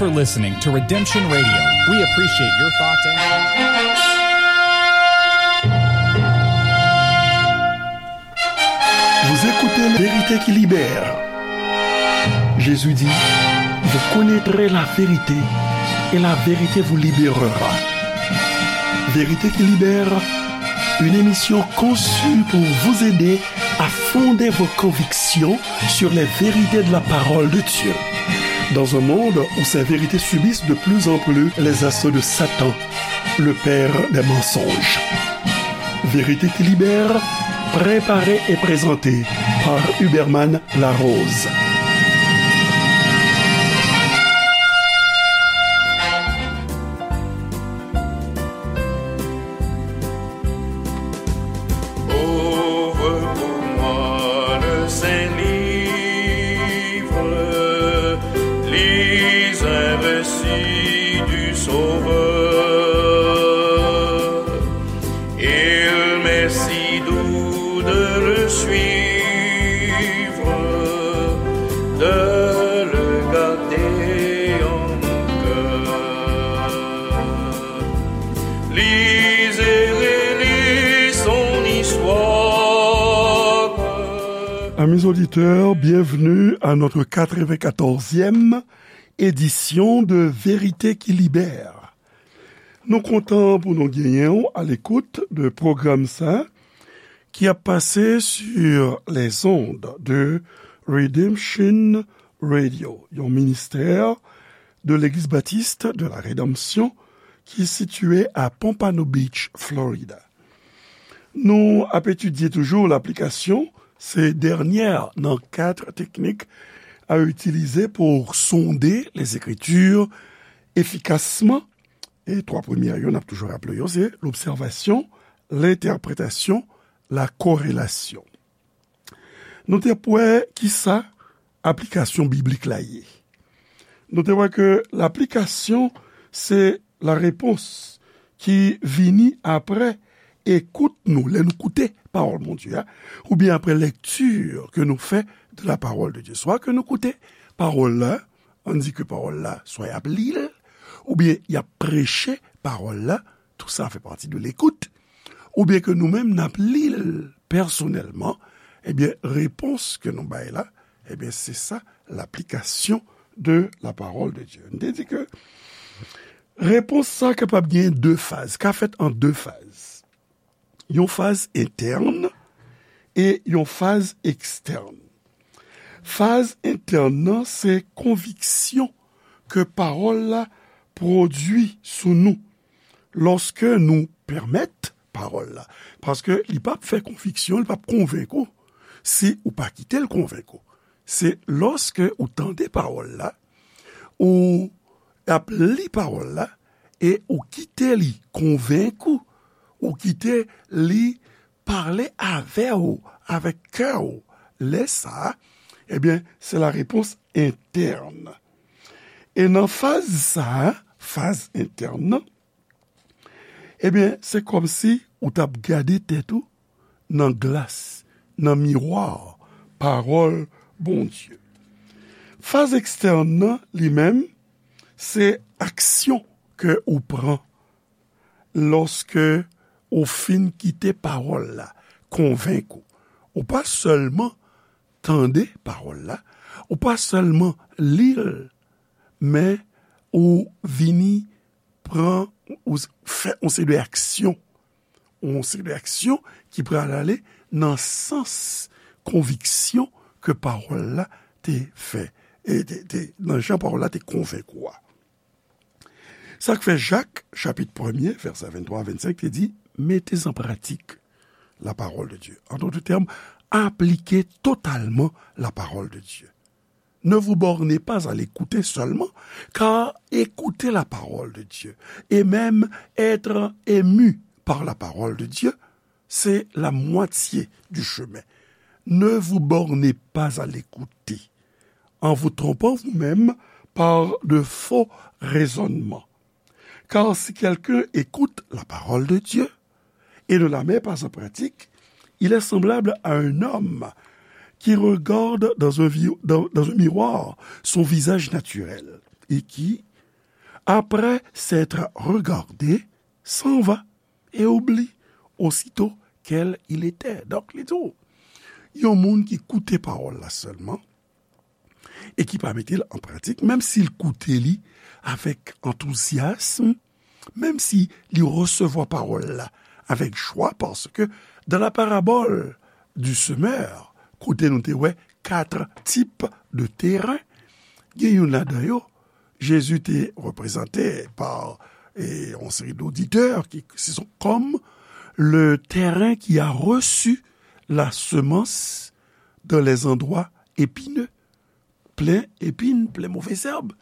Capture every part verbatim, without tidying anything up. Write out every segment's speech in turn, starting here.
for listening to Redemption Radio. We appreciate your thoughts and Vous écoutez La Vérité qui libère. Jésus dit, vous connaîtrez la vérité et la vérité vous libérera. Vérité qui libère, une émission conçue pour vous aider à fonder vos convictions sur les vérités de la parole de Dieu. Dans un monde où ces vérités subissent de plus en plus les assauts de Satan, le père des mensonges. Vérité qui libère, préparée et présentée par Huberman Larose. Ouvre pour moi le saint livre, lis un récit du Sauveur. Il m'est si doux de le suivre, de le garder en mon cœur. Lisez, relisez son histoire. Amis auditeurs, bienvenue à notre quatre-vingt-quatorzième édition de Vérité qui Libère. Nou kontan pou nou genyen w alekout de pwogram sa ki ap pase sur les ondes de Redemption Radio, yon ministè de Legliz Batis de la Redanmsyon ki sitiye a Pompano Beach, Florida. Nou ap etidye toujou laplikasyon se dènyè nan kat teknik a itilize pou sonde lezekritir efikasman. E twa premyè yo, n ap toujou raple yo, se lobsèvasyon, lentèpretasyon, lakorelasyon. Nou te wè kisa aplikasyon biblik la ye. Nou te wè ke laplikasyon se larepons ki vini apre ekout nou, lè nou koute pawòl Bondye a, oubyen apre lèkti ke nou fè de la parole de Dieu. Swa ke nou koute pawòl la, ann di ke pawòl la, swa y ap li l, oubyen y ap preche pawòl la, tou sa fè pati de lekout, oubyen ke nou menm n ap li l pèsonèlman, ebyen, repons ke nou bay la, ebyen, se sa, laplikasyon de la parole de Dieu. M te di ke repons sa kapab gen de faz, ka fèt an de faz. Yon faz entèn e yon faz ekstèn. Faz entèn nan, se konviksyon ke pawòl la pwodui sou nou lòske nou pèmèt pawòl la. Paske li p ap fè konviksyon, li p ap konvenk ou si ou pa kite l konvenk ou. Se lòske ou tande pawòl la, ou ap li pawòl la, e ou kite li konvenk ou, ou kite li pale avè w, avèk kè w. Lè sa a, ebyen, se larepons entèn. E nan faz sa a, faz entèn nan, ebyen, se kòmsi ou t ap gade tèt ou nan glas, nan miwa pawòl Bondye. Faz ekstèn nan, li menm, se aksyon ke ou pran lòske ou fin kite pawòl la konvenk ou. Ou pa sèlman tande pawòl la, ou pa sèlman li l, men ou vini pran, ou s-, fè yon seri de aksyon, yon seri de aksyon ki pral ale nan sans konviksyon ke pawòl la te fè, e te, te, nan jan pawòl la te konvenk ou a. Sa k fè Jak, chapit premye, vèsè venntwa a vennsenk, te di, mettez en pratique la parole de Dieu. En d'autres termes, appliquez totalement la parole de Dieu. Ne vous bornez pas à l'écouter seulement, car écouter la parole de Dieu et même être ému par la parole de Dieu, c'est la moitié du chemin. Ne vous bornez pas à l'écouter, en vous trompant vous-même par de faux raisonnements. Car si quelqu'un écoute la parole de Dieu et ne la met pas en pratique, il est semblable à un homme qui regarde dans un vi-, dans, dans un miroir son visage naturel et qui, Après s'être regardé, s'en va et oublie aussitôt quel il était. Donk, li di w, yon moun ki koute pawòl la sèlman e ki pa mete l an pratik, menm si l koute li avèk antouzyasm, menm si li resevwa pawòl la avèk jwa, paske dans la parabole du semeur, kote nou te wè kat tip de teren, gen youn ladan yo, Jezi te reprezante pa, e, yon seri d'oditè ki se sont comme le terrain qui a reçu la semence dans les endroits épineux, plen epin, plen move zèb.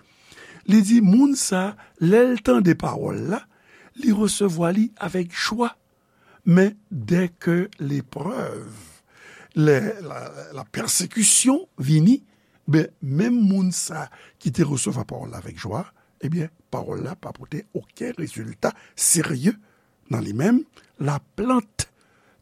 Li di, moun sa, lè l tande pawòl la, li resevwa li avèk jwa. Men dèke leprèv, lè la, la pèsekisyon vini, ben, menm moun sa ki te resevwa pawòl la avèk jwa, ebyen, pawòl la pa pote okenn rezilta serye nan li menm. Laplant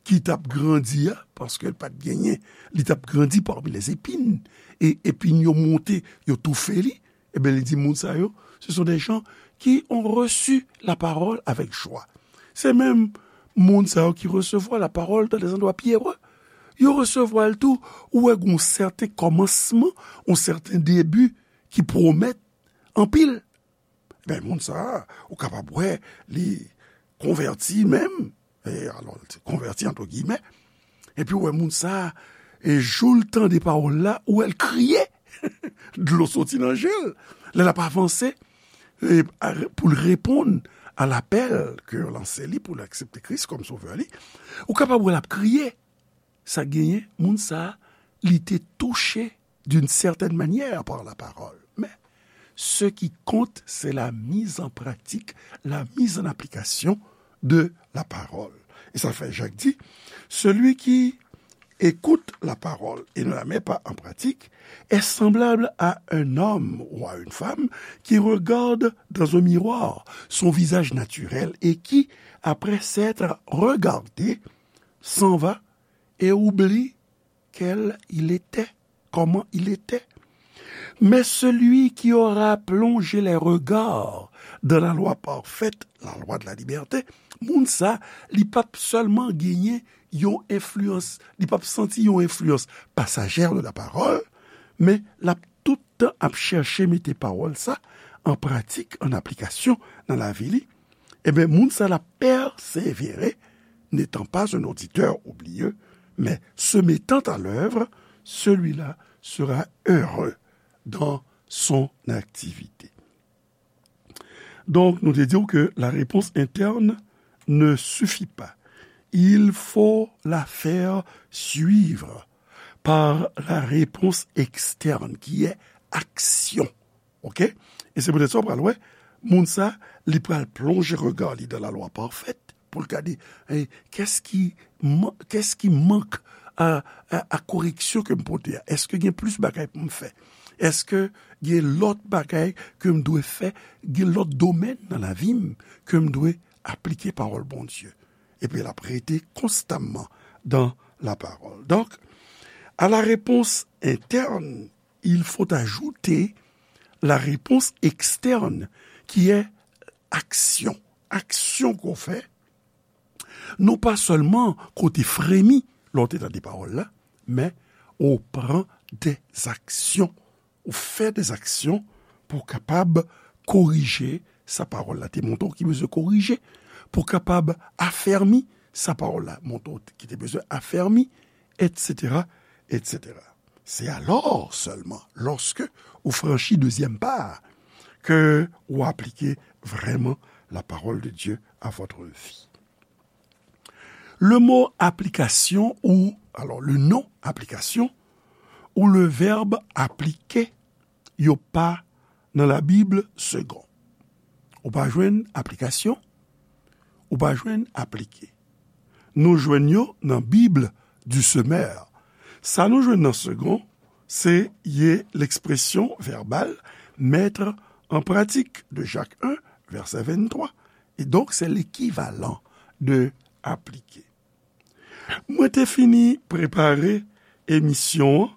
ki t ap grandi a, paske l pa t genyen, li t ap grandi parmi les épines, e epin yo monte, yo toufe li, ebyen, li di moun sa yo, ce sont des gens qui ont reçu la parole avec joie. Se menm moun sa yo ki resevwa la parole dans des endroits pierreux. Yo resevwa l tou, ou wè gen yon sèten kòmansman, yon sèten debi ki pwomèt anpil. Ben, moun sa a, ou kapab wè, li konvèti menm, e, alò, li te konvèti, entre guillemets, epi ou wè moun sa a, e jou l tande pawòl la, ou wè l kriye, dlo soti nan je l, lè l ap avanse, e, a, pou l reponn a lapèl ke yo lanse li, pou l aksepte Kris kòm sovè li, ou kapab wè l ap kriye. Sa genyen, moun sa a, li te touche d'une certaine manière par la parole. Mais ce qui compte, c'est la mise en pratique, la mise en application de la parole. E sa fè Jak di, celui qui écoute la parole et ne la met pas en pratique est semblable à un homme ou à une femme qui regarde dans un miroir son visage naturel et qui, après s'être regardé, s'en va et oublie quel il était, comment il était. Mais celui qui aura plongé les regards dans la loi parfaite, la loi de la liberté, moun sa, li p ap sèlman genyen yon enfliyans, li p ap santi yon enfliyans pasajè de la parole, men l ap tout tan ap chèche mete pawòl sa an pratik, an aplikasyon nan lavi li, ebyen, moun sa l ap pèsevere, n'étant pas un auditeur oublieux, mais se mettant à l'œuvre, celui-là sera heureux dans son activité. Donc, nou te di w ke la réponse interne ne suffit pas. Il faut la faire suivre par la réponse externe, qui est action. Ok? E se poutèt sa w pral wè, moun sa, li pral plonje rega li dan lalwa pafèt pou l gade, eh, kès ki man-, kès ki mank a, a, a koreksyon ke m pote a? Èske gen plis bagay pou m fè? Èske gen lòt bagay ke m dwe fè? Gen lòt domèn nan lavi m ke m dwe aplike pawòl Bondye? Epi l ap rete konstamman dan lapawòl. Donk, à la réponse interne, il faut ajouter la réponse externe, qui est action. Aksyon ke w fè, non pa sèlman ke w te fremi lè w te tande pawòl la, men ou pran dèzaksyon, ou fè dèzaksyon pou w kapab korije sa pawòl la te montre w ki bezwen korije, pou w kapab afèmi sa pawòl la montre w ki te bezwen afèmi, etsetera, etsetera. C'est alors seulement, lorsque ou franchi deuxième pas, que ou appliquez vraiment la parole de Dieu à votre vie. Le mot application ou, alors le nom application, ou le verbe appliquer, yo pa nan Labib segon. Ou pa jwenn aplikasyon, ou pa jwenn aplike. Nou jwenn yo nan Bible du Semeur. Sa nou jwenn nan segon, se ye l'expression verbale mettre en pratique de Jacques un, verset vingt-trois. Et donc, c'est l'équivalent de appliquer. Mwen te fini prepare emisyon an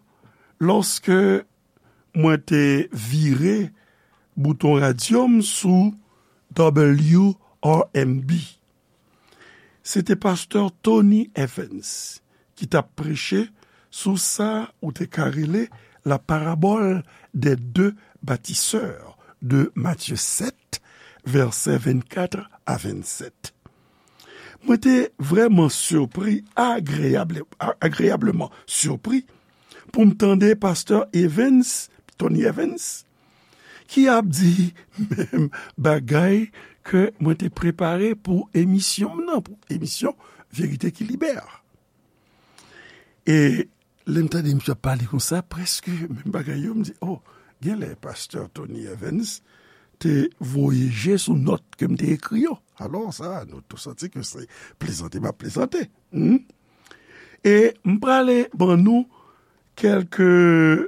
lòske mwen te vire bouton radyo m sou W R M B. Se te pastè Tony Evans ki t ap preche sou sa ou te ka rele la parabole des deux bâtisseurs de Matthieu sept, vèsè vennkat a vennsèt. Mwen te vrèman sipri, agreyable, agreyableman sipri, pou m tande pastè Evans, Tony Evans, ki ap di menm bagay ke mwen te prepare pou emisyon m nan, pou emisyon Verite ki Libè. E lè m tande misye ap pale konsa, prèske menm bagay yo, m di, oh, genlè pastè Tony Evans te voye je sou nòt ke m te ekri yo. Alò sa, nou tou santi ke se plezante m ap plezante. Hmm? E m prale ban nou quelques-uns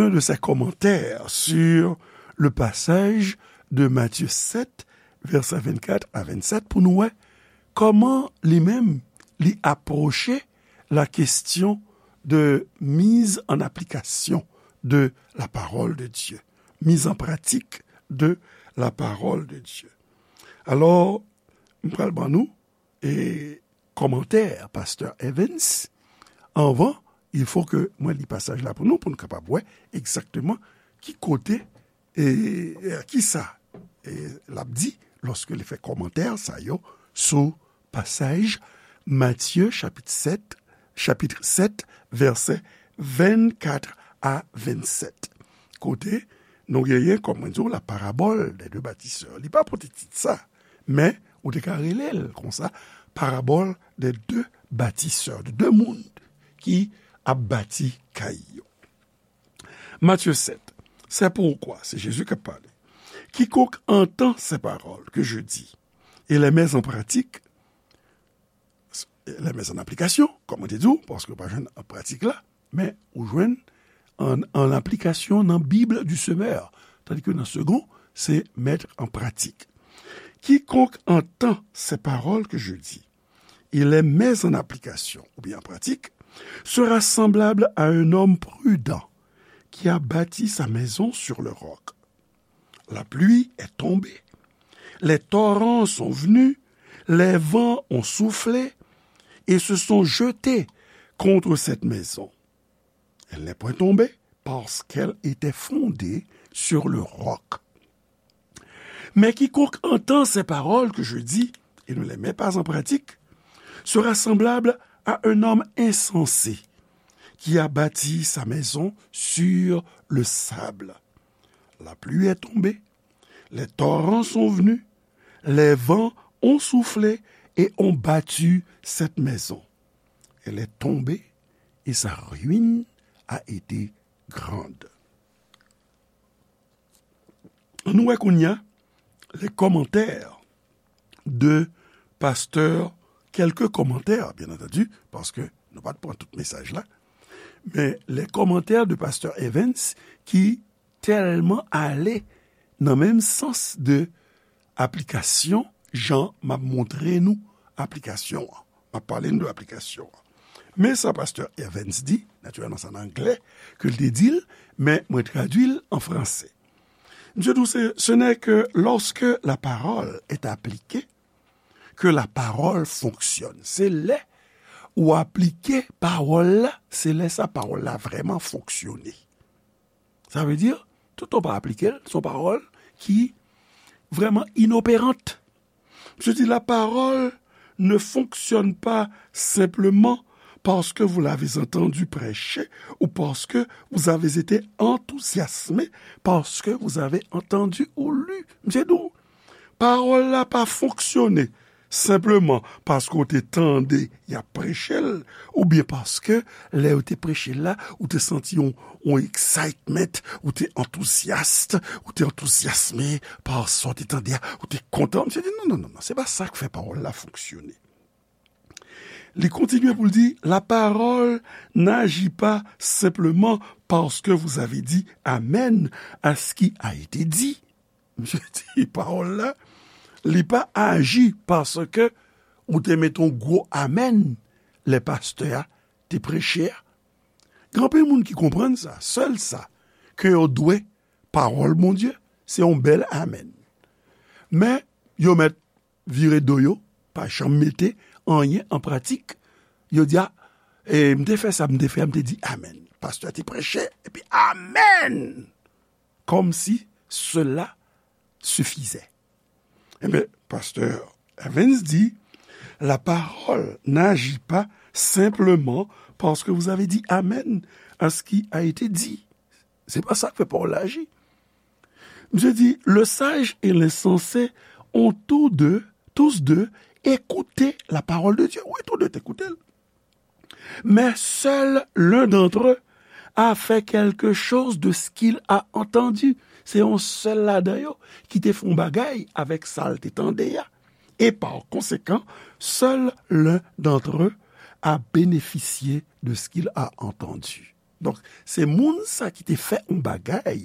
de ses commentaires sur le passage de Matthieu sept, vèsè vennkat a vennsèt, pou nou wè kòman li menm li apwoche la question de mise en application de la parole de Dieu, mise en pratique de la parole de Dieu. Alò, m pral ban nou e kòmantè pastè Evans. Anvan, il faut que mwen li pasaj la pou nou, pou nou kapab wè egzakteman ki kote e, e ki sa e, l ap di lòske li fè kòmantè sa yo sou pasaj Matye chapit sèt, chapit sèt, vèsè vennkat a vennsèt. Kote nou genyen, kòm mwen di w, la parabole des deux bâtisseurs. Li pa pote tit sa, men ou te ka rele l konsa, parabole des deux bâtisseurs, de de moun ki ap bati kay yo. Matthieu sept. C'est pourquoi, c'est Jésus qui a parlé. Quiconque entend ces paroles que je dis et les met en pratique, les met en application, kòm mwen te di w, paske w pa jwenn an pratik la, men ou jwenn an, an aplikasyon nan Bible du semeur, tandis que nan second, c'est mettre en pratique. Quiconque entend ces paroles que je dis et les met en application, oubyen an pratik, sera semblable à un homme prudent qui a bâti sa maison sur le roc. La pluie est tombée, les torrents sont venus, les vents ont soufflé et se sont jetés contre cette maison. Elle n'est point tombée parce qu'elle était fondée sur le roc. Mais quiconque entend ces paroles que je dis et ne les met pas en pratique sera semblable à un homme insensé qui a bâti sa maison sur le sable. La pluie est tombée, les torrents sont venus, les vents ont soufflé et ont battu cette maison. Elle est tombée et sa ruine a été grande. Ann nou wè kounye a les commentaires de pasteur, quelques commentaires, bien entendu, paske nou pa t pran tout mesaj la, men les commentaires de pasteur Evans ki tèlman ale nan menm sans de aplikasyon, jan m ap montre nou aplikasyon an. M ap pale nou de aplikasyon an. Men sa pastè Evans di, natirèlman sa nan anglè ke l te di l, men mwen tradui l an franse. Misye di w, ce n'est que lorsque la parole est appliquée que la parole fonctionne. Se lè ou aplike pawòl la, se lè sa pawòl la vrèman fonksyone. Sa vle di, tout tan w pa aplike l, se yon pawòl ki vrèman inopérante. Misye di, la parole ne fonctionne pas simplement parce que vous l'avez entendu prêcher ou parce que vous avez été enthousiasmé parce que vous avez entendu ou lu. Misye di w, pawòl la pa fonksyone senpleman paske w te tande y ap preche l, oubyen paske lè yo te preche l la, ou te santi yon, yon excitement, ou te antouzyas, ou te antouzyasme pa sa w te tande a, ou te kontan. Misye di, non, non, non, non, se pa sa k fè pawòl la fonksyone. Li kontinye pou l di, la parole n'agit pas simplement parce que vous avez dit amen à ce qui a été dit. Misye di pawòl la, li pa aji paske ou te mete yon gwo amèn lè pastè a te preche a. Gen anpil moun ki konprann sa, sèl sa ke yo dwe pawòl Bondye, se yon bèl amèn. Men, yo mèt vire do yo, pa janm mete anyen an pratik. Yo di, a, e, m te fè sa, m te fè, m te di amèn. Pastè te preche, epi amèn! Comme si cela suffisait. Ebyen, pastè Evans di, la parole n'agit pas simplement parce que vous avez dit amen à ce qui a été dit. Se pa sa k fè pawòl la aji. Misye di, le sage et l'insensé ont tous deux, tous deux écouté la parole de Dieu. Wi, tou de te koute l. Mais seul l'un d'entre eux a fait quelque chose de ce qu'il a entendu. Se yon sèl ladan yo ki te fè yon bagay avèk sa l te tande a. Et par conséquent, seul l'un d'entre eux a bénéficié de ce qu'il a entendu. Donk, se moun sa ki te fè yon bagay,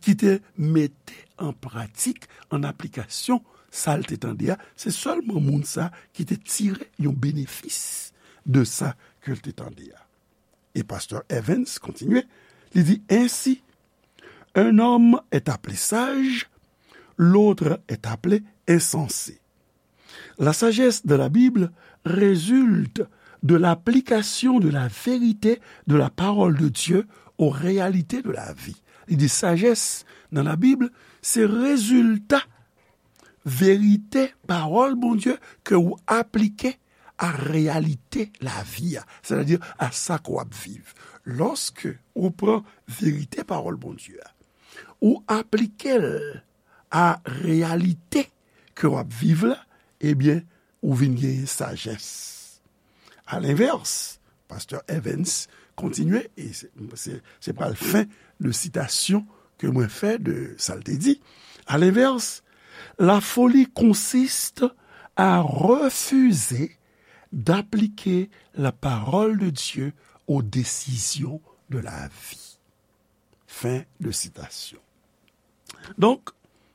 ki te mete an pratik, an aplikasyon, sa l te tande a, se sèlman moun sa ki te tire yon benefis de sa ke l te tande a. E pastè Evans kontinye, li di, ainsi, un homme est appelé sage, l'autre est appelé insensé. La sagesse de la Bible résulte de l'application de la vérité de la parole de Dieu aux réalités de la vie. Li di sajès nan Labib, se rezilta verite pawòl Bondye ke ou aplike a reyalite lavi a, sètadi a sa ke w ap viv. Lòske ou pran verite pawòl Bondye a, ou aplike l a reyalite ke w ap viv la, ebyen, ou vin genyen sajès. Alenvès, pastè Evans kontinye, e se, se, se pral fen de sitasyon ke mwen fè de sa l te di. Alenvès, la folie consiste à refuser d'appliquer la parole de Dieu aux décisions de la vie. Fin de citation. Donk,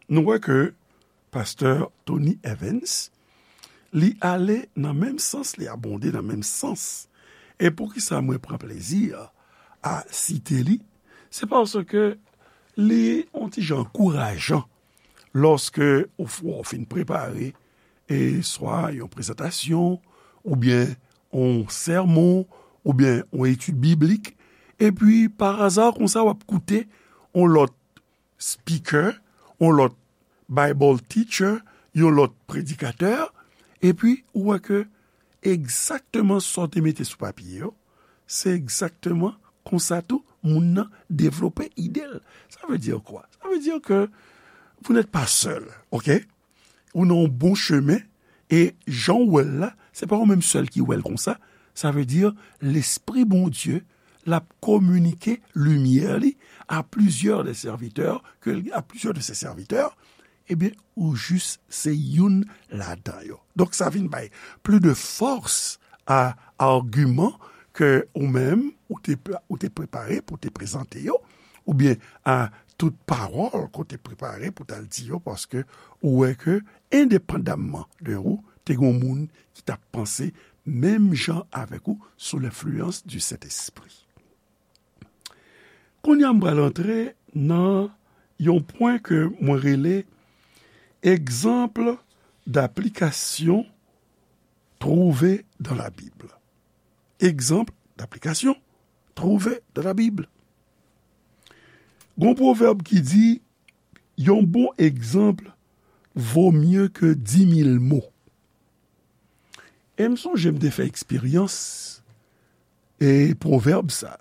nou wè ke pastè Tony Evans, li ale nan menm sans, li abonde nan menm sans. E poukisa mwen pran plezi a site li? Se paske li yon ti jan ankourajan lòske ou, ou fin prepare e swa yon prezantasyon, oubyen yon sèmon, oubyen yon etid biblik, epi pa aza konsa w ap koute yon lòt speaker, yon lòt Bible teacher, yon lòt predikatè, epi ou wè ke egzakteman sa w te mete sou papye yo, se egzakteman konsa tou moun nan devlope ide l. Sa vle di kwa? Sa vle di ke vous n'êtes pas seul, ok? Ou nan yon bon chemen, e jan w wè l la, se pa ou menm sèl ki wè l konsa. Sa vle di, Lespri Bondye, l ap kominike limyè li à plusieurs des serviteurs, ke, à plusieurs de ses serviteurs, ebyen, ou jis se youn ladan yo. Donk, sa vin bay plis de fòs a agiman ke ou menm, ou te, ou te prepare pou te prezante yo, oubyen a tout pawòl ke w te prepare pou t al di yo, paske ou wè ke, endepandamman de ou, te gen yon moun ki t ap panse menm jan avèk ou sou lenfliyans di Sentespri. Kounye a, m pral antre nan yon pwen ke mwen rele egzanp d'aplikasyon trouvé dans la Bible. Egzanp d'aplikasyon trouvé dans la Bible. Gon pwovèb ki di, yon bon egzanp vo mye ke di mil mo. E m sonje m te fè eksperyans e pwovèb sa.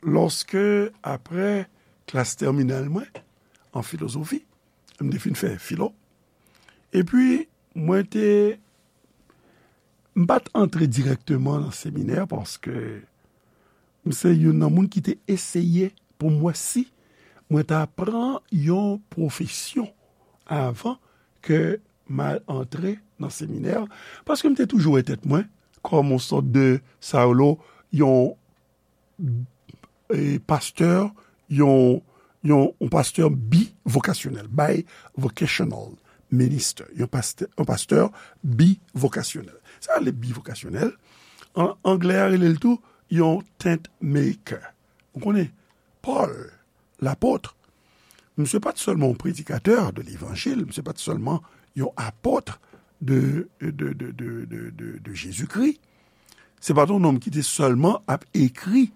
Lòske, apre klas tèminal mwen, an filozofi, m te fin fè filo, epi mwen te, m pa t antre dirèkteman nan seminè paske m se youn nan moun ki te eseye pou m wè si mwen ta pran yon pwofesyon avan ke m al antre nan seminè, paske m te toujou wè tèt mwen kòm yon sòt de, sa yo lo, yon, e, pastè, yon, yon, yon pastè bivokasyonèl, bivocational minister, yon pastè, yon pastè bivokasyonèl. Sa rele bivokasyonèl, an anglè a rele l tou yon tent maker. Ou konnen, Pòl, lapot, Misye pa t sèlman yon predikatè de levanjil, misye pa t sèlman yon apot de, de, de, de, de, de, de Jezikri. Se pa t yon nonm ki te sèlman ap ekri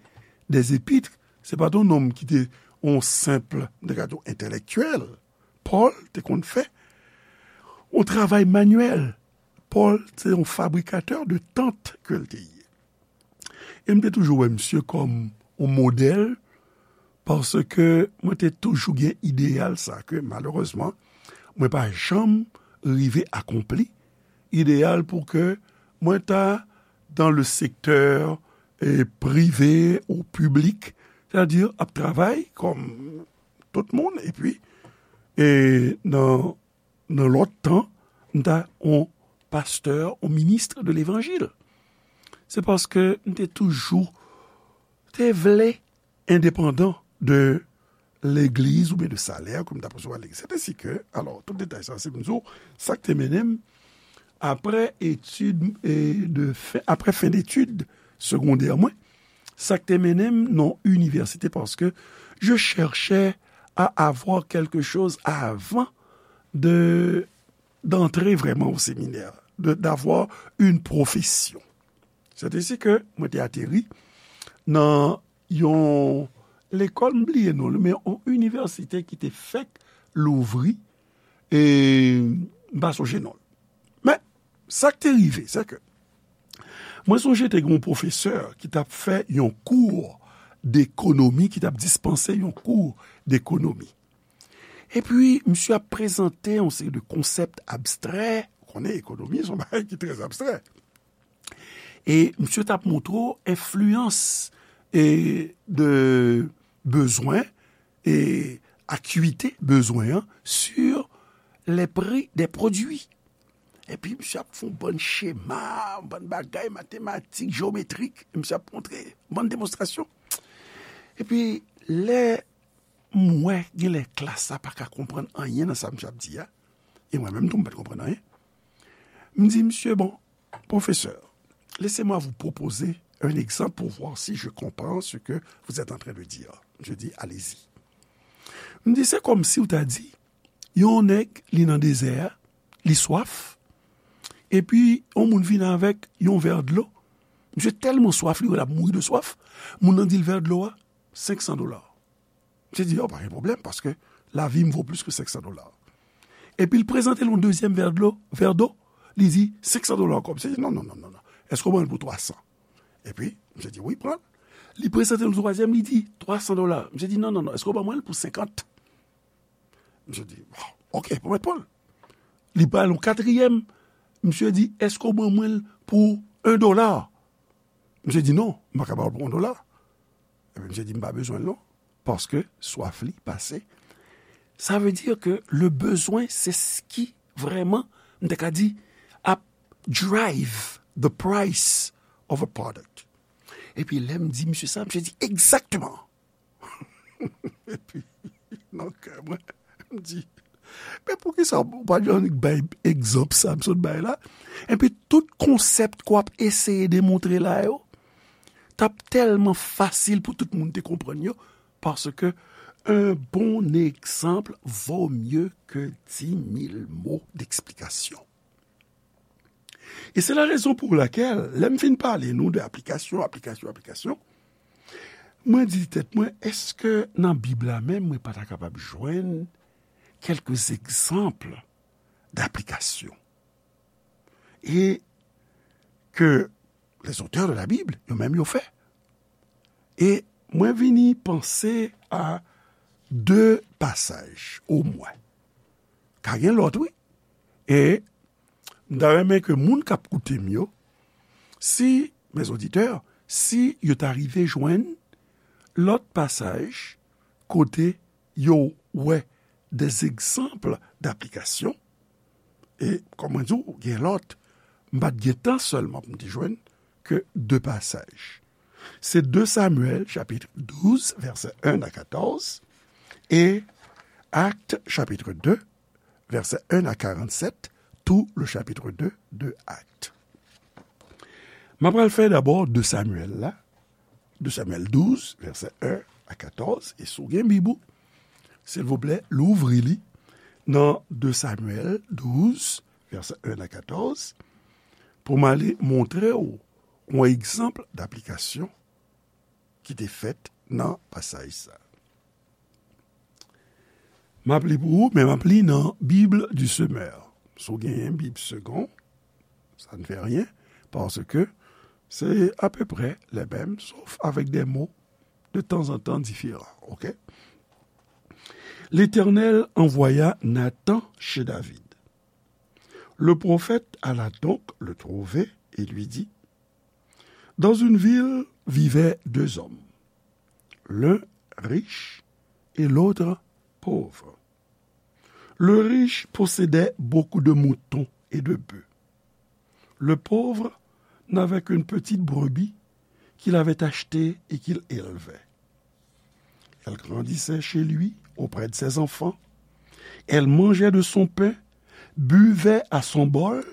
des épîtres, se pa t yon nonm ki te yon senp, m te ka di w, entèlektyèl. Pòl te konn fè yon travay manyèl. Pòl se yon fabrikatè de tant ke l te ye. E m te toujou wè misye kòm yon modèl, paske mwen te toujou gen ideyal sa ke, malerezman, mwen pa janm rive akonpli. Ideyal pou ke mwen ta dans le secteur, eh, privé ou piblik, sètadi ap travay kòm tout moun, epi, e nan, nan lòt tan, m ta yon pastè, yon minis de levanjil. Se paske m te toujou te vle endepandan de legliz oubyen de salè ke m t ap resevwa legliz. Sèt ensi ke, alò, tout detay sa, se pou m di w, sa k te mennen m, apre etid, e, de fen, apre fen detid segondè mwen, sa k te mennen m nan inivèsite, paske je cherchais à avoir quelque chose avant de, d'entrer vraiment au séminaire, de, d'avoir une profession. Sèt ensi ke mwen te ateri nan yon lekòl, m bliye non li, men yon inivèsite ki te fèk louvri, e m pa sonje non l. Men, sa k te rive, se ke mwen sonje te gen yon pwofesè ki t ap fè yon kou dekonomi, ki t ap dispanse yon kou dekonomi. Epi, misye ap prezante yon seri de konsèp abstrè, ou konnen ekonomi, se yon bagay ki trè abstrè. E misye t ap montre w enfliyans, e, de bezwen, e, acuité bezwen an sur les prix des produits. Epi misye ap fè yon bann chema, yon bann bagay matematik, jewometrik, e misye ap montre yon bann demonstrasyon. Epi lè m wè genlè klas la pa ka konprann anyen nan sa misye ap di a, e mwen menm tou m pa t konprann anyen, m di misye, bon, professeur, laissez-moi vous proposer un exemple pour voir si je comprends ce que vous êtes en train de dire. Je dis, allez-y. M di, se kòmsi w ta di, yon nèg, li nan dezè a, li swaf, epi yon moun vin avèk yon vè dlo. Misye tèlman swaf, li wè l ap mouri de swaf, moun nan di l vè dlo a, senk san dola. Misye di, oh, pa gen pwoblèm, paske lavi m vo plis ke senk san dola. Epi l prezante l yon dezyèm vè dlo, vè do, li di, senk san dola ankò. Misye di, non, non, non, non, non. Èske w ban l pou twa san? Epi, misye di, wi, pran l. Li prezante l yon twazyèm, li di, twa san dola. Misye di, non, non, non, èske w ban mwen l pou senkant? Misye di, bon, ok, pwomèt pran l. Li ba l yon katriyèm. Misye di, èske w ban mwen l pou en dola? Misye di, non, m pa ka ba w l pou en dola. Epi misye di, m pa bezwen l non, paske swaf li pase. Sa vle di ke le bezwen, se s ki vrèman, m te ka di, ap drive the price of a product. Epi lè m di misye sa, misye di, egzakteman. Epi, nan kè mwen, m di, men poukisa w pa t annik bay egzanp sa m sot bay la? Epi tout konsèp ke w ap eseye demontre la yo, t ap tèlman fasil pou tout moun te konprann yo, paske un bon exemple vaut mieux que dix mille mots d'explication. E se la rezon pou lakèl, lè m fin pale nou de aplikasyon, aplikasyon, aplikasyon, mwen di tèt mwen, èske nan Bib la menm, mwen pa ta kapab jwenn quelques exemples d'application? E ke les auteurs de la Bible, yo menm yo fè. E mwen vini panse a de pasaj, omwen. Ka gen lòt, wi. E m ta renmen ke moun k ap koute m yo, si, mes auditeurs, si yo ta rive jwenn lòt pasaj kote yo wè des exemples d'application, e kòm mwen di w, gen lòt, m pa t gen tan sèlman pou m te jwenn ke de pasaj. Se de Samuel, chapitre douze, versets un à quatorze, et Actes, chapitre deux, versets un à quarante-sept, tout le chapitre deux de Actes. M ap pral fè dabò de Samuel la, de Samuel douze, versets un à quatorze, e si w gen Bib ou, Silvouplè, louvri li nan de Samyèl douz, vèsè en a katòz, pou m ale montre w yon egzanp daplikasyon ki te fèt nan pasaj sa. M ap li pou ou, men m ap li nan Bible du Semeur. Si w genyen Bib Segond, ça ne fait rien, parce que c'est à peu près les mêmes, sauf avec des mots de temps en temps différents. Ok? L'Éternel envoya Nathan chez David. Le prophète alla donc le trouver et lui dit, Dans une ville vivaient deux hommes, l'un riche et l'autre pauvre. Le riche possédait beaucoup de moutons et de bœufs. Le pauvre n'avait qu'une petite brebis qu'il avait achetée et qu'il élevait. Elle grandissait chez lui, auprès de ses enfants. Elle mangeait de son pain, buvait à son bol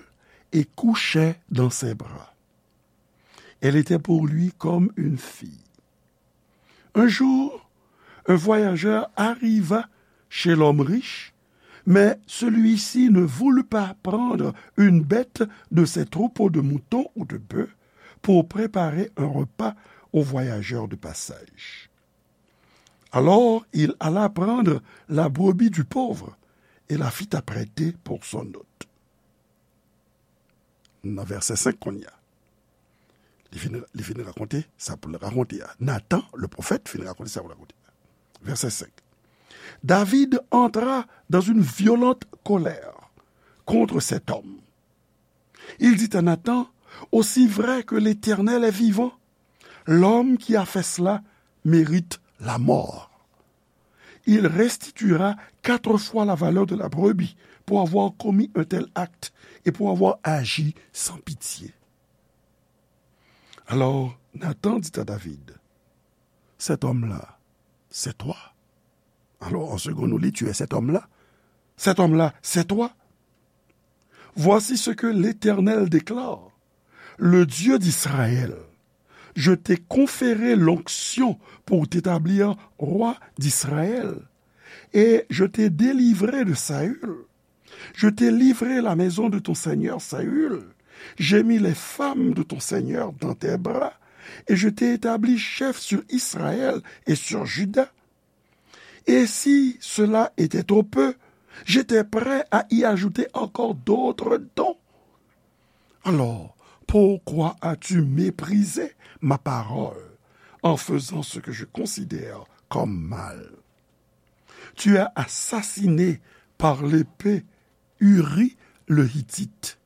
et couchait dans ses bras. Elle était pour lui comme une fille. Un jour, un voyageur arriva chez l'homme riche, mais celui-ci ne voulut pas prendre une bête de ses troupeaux de moutons ou de bœufs pour préparer un repas aux voyageurs de passage. Alors il alla prendre la brebis du pauvre et la fit apprêter pour son hôte. Nan vèsè senk kounye a. Li fin, li fin rakonte sa pou l rakonte a. Nathan, le prophète, fin rakonte sa pou l rakonte a. Vèsè senk. David entra dans une violente colère contre cet homme. Il dit à Nathan, Aussi vrai que l'Éternel est vivant, l'homme qui a fait cela mérite la mort. Il restituera quatre fois la valeur de la brebis pour avoir commis un tel acte et pour avoir agi sans pitié. Alors Nathan dit à David, Cet homme-là, c'est toi. Alors en second, nous lit, Tu es cet homme-là. Cet homme-là, c'est toi. Voici ce que l'Éternel déclare, le Dieu d'Israël. Je t'ai conféré l'onction pour t'établir roi d'Israël, et je t'ai délivré de Saül. Je t'ai livré la maison de ton seigneur Saül. J'ai mis les femmes de ton seigneur dans tes bras, et je t'ai établi chef sur Israël et sur Juda. Et si cela était trop peu, j'étais prêt à y ajouter encore d'autres dons. Alors, pourquoi as-tu méprisé ma parole en faisant ce que je considère comme mal ? Tu as assassiné par l'épée Uri le Hittite.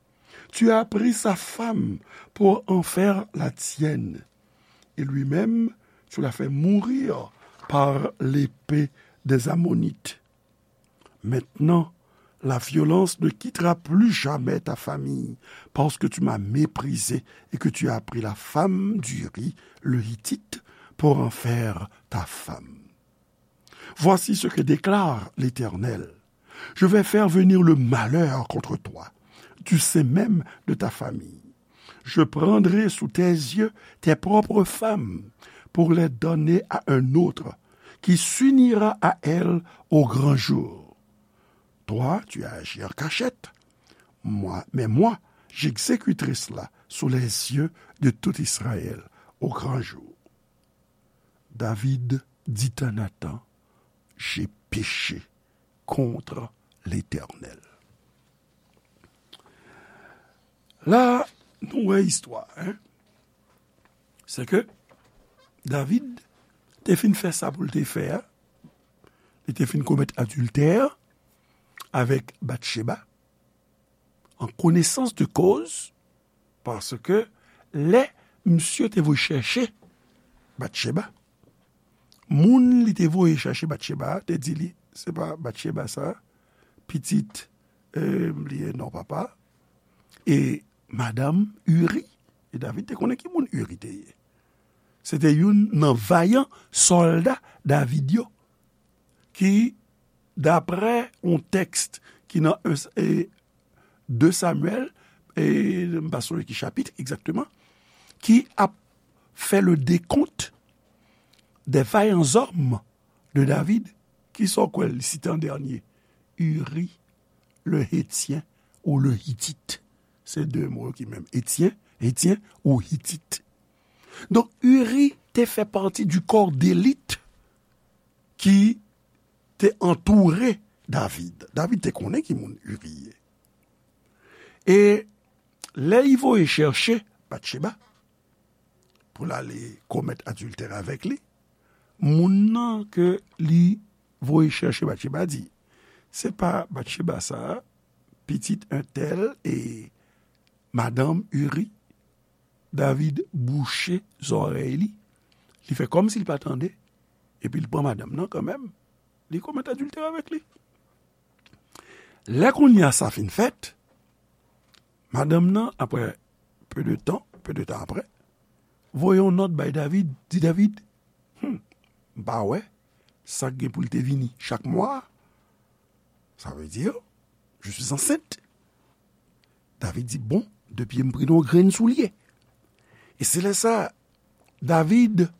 Tu as pris sa femme pour en faire la tienne. Et lui-même, tu l'as fait mourir par l'épée des Ammonites. Maintenant, la violence ne quittera plus jamais ta famille, parce que tu m'as méprisé et que tu as pris la femme d'Uri, le Hittite, pour en faire ta femme. Voici ce que déclare l'Éternel. Je vais faire venir le malheur contre toi, du sein même de ta famille. Je prendrai sous tes yeux tes propres femmes pour les donner à un autre qui s'unira à elles au grand jour. Toi, tu as agi en cachette, moi, mais moi, j'exécuterai cela sous les yeux de tout Israël au grand jour. David dit à Nathan, J'ai péché contre l'Éternel. La, nou wè istwa, hein? Se ke David te fin fè sa pou l te fè a. Li te fin komèt adiltè avèk Batcheba, an konesans de koz, paske lè misye te voye chèche Batcheba, moun li te voye chèche Batcheba a te di li, se pa Batcheba sa, pitit, eh, m bliye non papa, e madanm Uri. E David te konnen ki moun Uri te ye. Se te youn nan vayan sòlda David yo, ki, daprè yon tèks ki nan, e, de Samyèl, e m pa sonje ki chapit egzakteman, ki ap fè le décompte des vaillants hommes de David. Kisa w kwè l site an dènye? Uri, le Hétien ou le Hitit. Se de mo yo ki menm. Etyen, Etyen ou Hitit. Donk, Uri te fè pati du corps d'élite ki te antoure David. David te konnen ki moun Uri ye. E lè li voye chèche Batcheba pou l ale komèt adiltè avèk li, moun nan ke li voye chèche Batcheba di, "Se pa Batcheba sa a, pitit entèl e madanm Uri?" David bouche zòrèy li, li fè kòmsi l pa tande, epi l pran madanm nan kanmenm, li komèt adiltè avèk li. Lè kounye a sa fin fèt, madanm nan, apre peu de temps, peu de temps après, voye yon nòt bay David, di David, "Hmm, m pa wè sa k gen pou l te vini chak mwa a. Ça veut dire, je suis enceinte." David di, "Bon, depi m pran yon grenn soulye." E se lè sa, David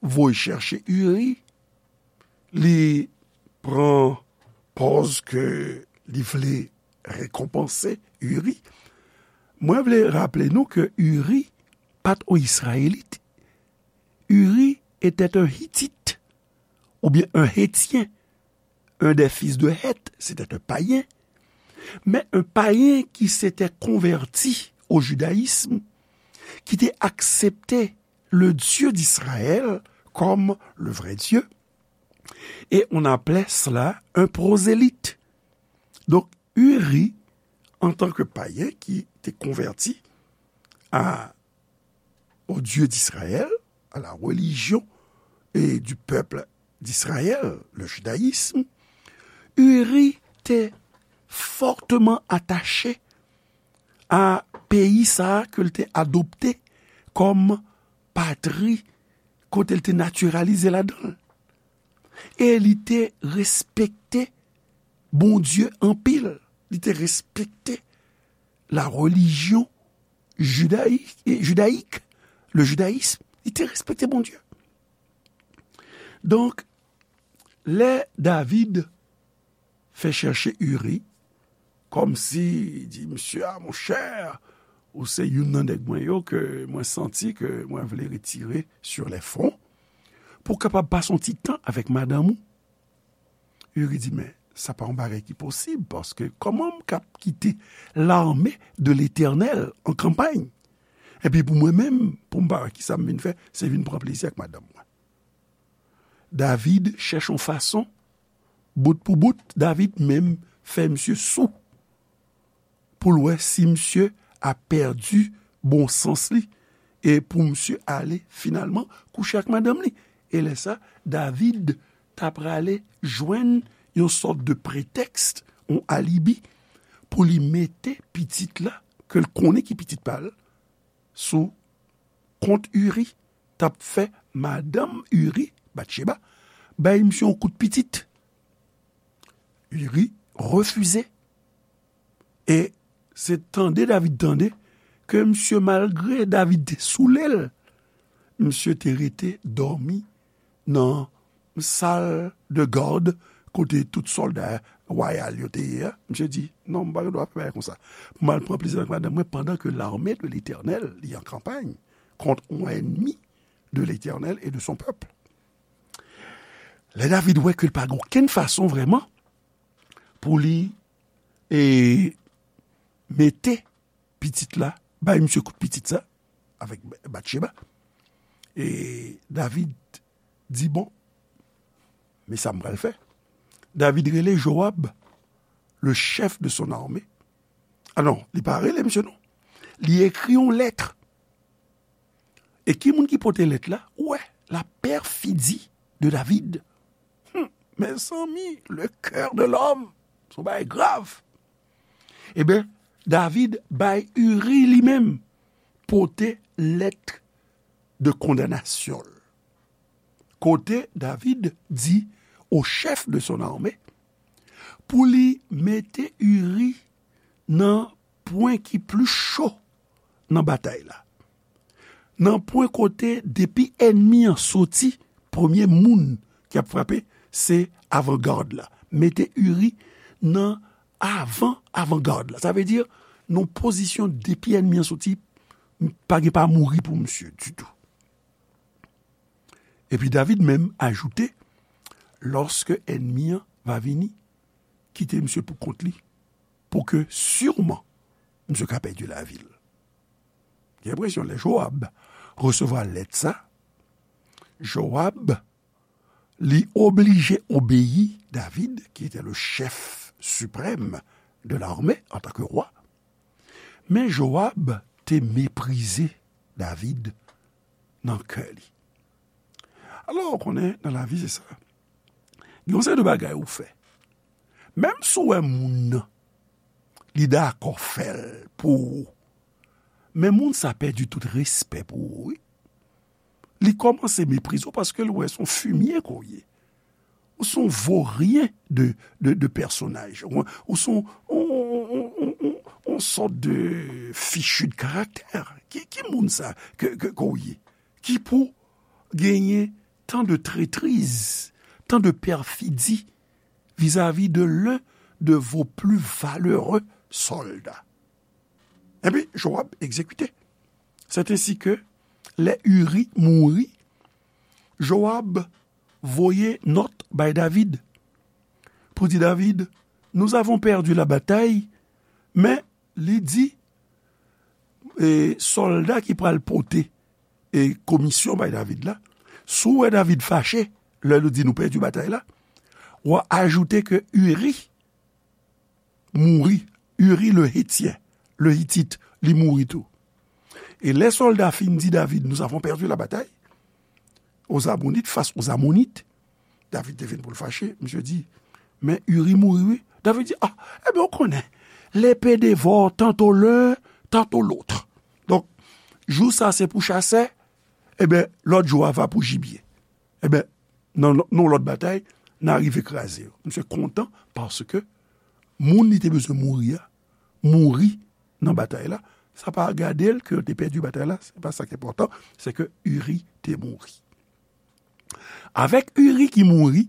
voye chèche Uri, li pran pòz ke li vle rekonpanse Uri. Mwen vle raple nou ke Uri pa t yon Izrayelit. Uri était un Hittite, oubyen un Hétien, un des fils de Heth, c'était un païen, mais un païen qui s'était converti au judaïsme, qui était accepté le Dieu d'Israël comme le vrai Dieu, et on appelait cela un prosélyte. Donc, Uri, en tant que païen qui était converti à, au Dieu d'Israël, à la religion et du peuple d'Israël, le judaïsme, Uri te forteman atache a peyi sa a ke l te adopte kòm patri kote l te natiralize ladan l. E li te respekte Bondye anpil. Li te respekte la religion judayik, judayik, le judaïsme. Li te respekte Bondye. Donk, lè David fè chèche Uri, kòmsi di, "Misye a, monchè, ou se youn nan nèg mwen yo ke mwen santi ke mwen vle retire sur les fronts, pou w kapab pase yon ti tan avèk madanm ou." Uri di, "Men, sa pa yon bagay ki posib, paske kòman m k ap kite l'armée de l'Éternel an kanpay? Epi pou mwen menm, pou m pa wè kisa m vin fè, se vin pran plezi ak madanm mwen." David chèche yon fason, bout pou bout, David menm fè misye sou, pou l wè si misye a pèdi bon sans li, e pou misye ale finalman kouche ak madanm li. E lè sa, David ta prale jwenn yon sòt de pretèks, yon alibi, pou li mete pitit la, ke l konnen ki pitit pa l, sou kont Uri, t ap fè madanm Uri, Batcheba, bay misye yon kout pitit. Uri refize. E se tande David tande ke misye, malgre David te soule l, misye te rete dòmi nan sal de gad kote tout sòlda wayal yo te ye a. Misye di, "Non, m pa gen dwa fè bagay konsa. Pou m al pran plezi avèk madanm mwen pandan ke l'armée de l'Éternel li an kanpay kont yon ènmi de l'Éternel et de son peuple." Lè David wè ke l pa gen okenn fason vrèman pou li, e, mete pitit la, bay misye kout pitit sa, avèk Batcheba. E David di, "Bon, men sa m pral fè." David rele Joab, le chef de son armée. Ah non, li pa rele misye non. Li ekri yon lèt. E ki moun ki pote lèt la? Ou wè, la perfidie de David. Hmm, mezanmi, le cœur de l'homme, se yon bagay grav. Eben, David bay Uri li menm pote lèt de kondanasyon l. Kote David di au chef de son armée pou li mete Uri nan pwen ki pli cho nan batay la. Nan pwen kote depi ènmi an soti, premye moun ki ap frape, se avangad la. Mete Uri nan avan avangad la. Sa vle di, nan pozisyon depi ènmi an soti, pa gen pa mouri pou misye ditou. Epi David menm ajoute, lòske ènmi an va vini, kite misye pou kont li, pou ke siman misye ka pèdi lavi l. Gen enpresyon lè Joab resevwa lèt sa, Joab li oblije obeyi David, ki te le chèf siprèm de l'armée antanke wa. Men Joab te meprize David nan kè li. Alò, ou konnen, nan lavi, se sa. Gen yon seri de bagay ou fè. Menm si w wè moun nan, li dakò fè l pou ou. Men moun sa pèdi tout respè pou ou, wi. Li kòmanse meprize w paske l wè se yon fimye ke w ye. Ou se yon voryen de, de, de pèsonaj. Ou, ou se yon, yon, yon, yon, yon, yon sòt de fichu de karaktè. Ki, ki moun sa ke, ke, ke w ye? Ki pou genyen tan de trètriz, tan de pèfidi vizavi de l'un de vos plus valeureux soldats. Epi, Joab egzekite. C'est ainsi que, lè Uri mouri, Joab voye nòt bay David pou di David, nous avons perdu la bataille, men li di, e, sòlda ki pral pote, e, komisyon bay David la, si w wè David fache, lè nou di nou pèdi batay la, w a ajoute ke Uri mouri, Uri le Hétien, le Hitit, li mouri tou. E lè sòlda fin di David, nous avons perdu la bataille aux Ammonites, face aux Ammonites, David te vin pou l fache, misye di, men Uri mouri, wi. David di, ah, ebyen, ou konnen, l'épée dévore tantôt l'un, tantôt l'autre. Donk, jou sa se pou chasè, ebyen, lòt jou a va pou jibye. Ebyen, nan, nan lòt batay, n a rive kraze yo. Misye kontan paske moun li te bezwen mouri a, mouri nan batay la. Sa pa gade l ke yo te pèdi batay la, se pa sa ki enpòtan, se ke Uri te mouri. Avèk Uri ki mouri,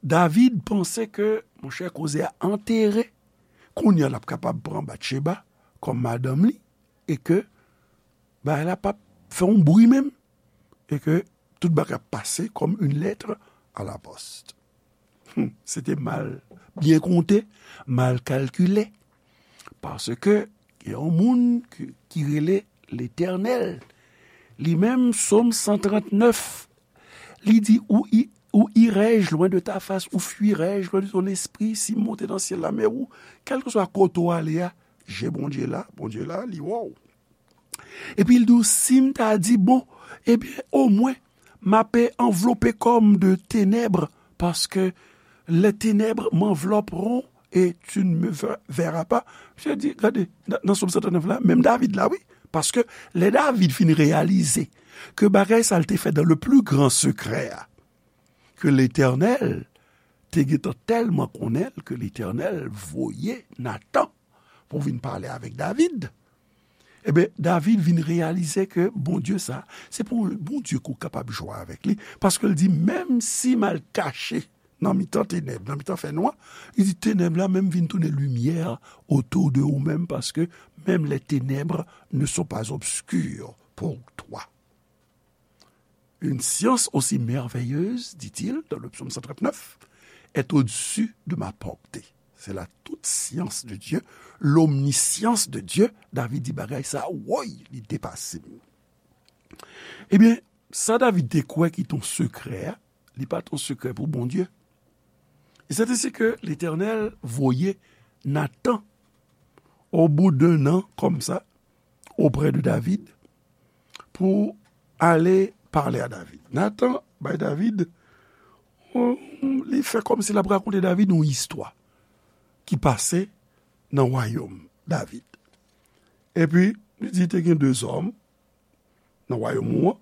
David panse ke, monchè, koze a antere, kounye a l ap kapab pran Batcheba kòm madanm li, e ke bagay la p ap fè yon bri menm, e ke tout bagay ap pase comme une lettre à la poste. Hmm, se te mal byen konte, mal kalkile. Paske gen yon moun ki, ki rele Letènèl. Li menm, Sòm san trant nèf, li di, ou, i- ou irai-je loin de ta face, ou fuirai-je loin de ton esprit, si m monte nan syèl la, men ou, kèlkeswa kote w ale a, je Bondye la, Bondye la, li wè w. Epi l di w, si m ta di, bon, ebyen, omwen, m ape anvlope kò m de tenèb, paske les ténèbres m'envelopperont et tu ne me ver- verras pas. Misye di, gade, nan, nan Sòm san trant nèf la, menm David la, wi, paske lè David fin reyalize ke bagay sa l te fè dans le plus grand secret a, ke Letènèl te gentan tèlman konnen l ke Letènèl voye Natan pou vin pale avèk David. Ebyen, David vin reyalize ke Bondye sa, se pou Bondye ke w kapab jwe avèk li, paske l di, menm si m al kache nan mitan tenèb, nan mitan fènwa, li di, tenèb la menm vin tounen limyè autour de ou menm, paske menm les ténèbres ne sont pas obscures pour toi. Une science aussi merveilleuse, dit-il dans le psaume cent trente-neuf, est au-dessus de ma portée. C'est la toute science de Dieu, l'omniscience de Dieu. David di bagay sa, woy, li depase m. Ebyen, sa David te kwè ki t on sekrè a, li pa t on sekrè pou Bondye. E c'est ainsi que l'Éternel voye Natan, au bout d'un an, comme ça, auprès de David, pou ale pale a David. Natan bay David, on, li fè kòmsi l ap rakonte David yon istwa ki pase nan wayòm David. Epi, li di te gen de zòm nan wayòm ou an,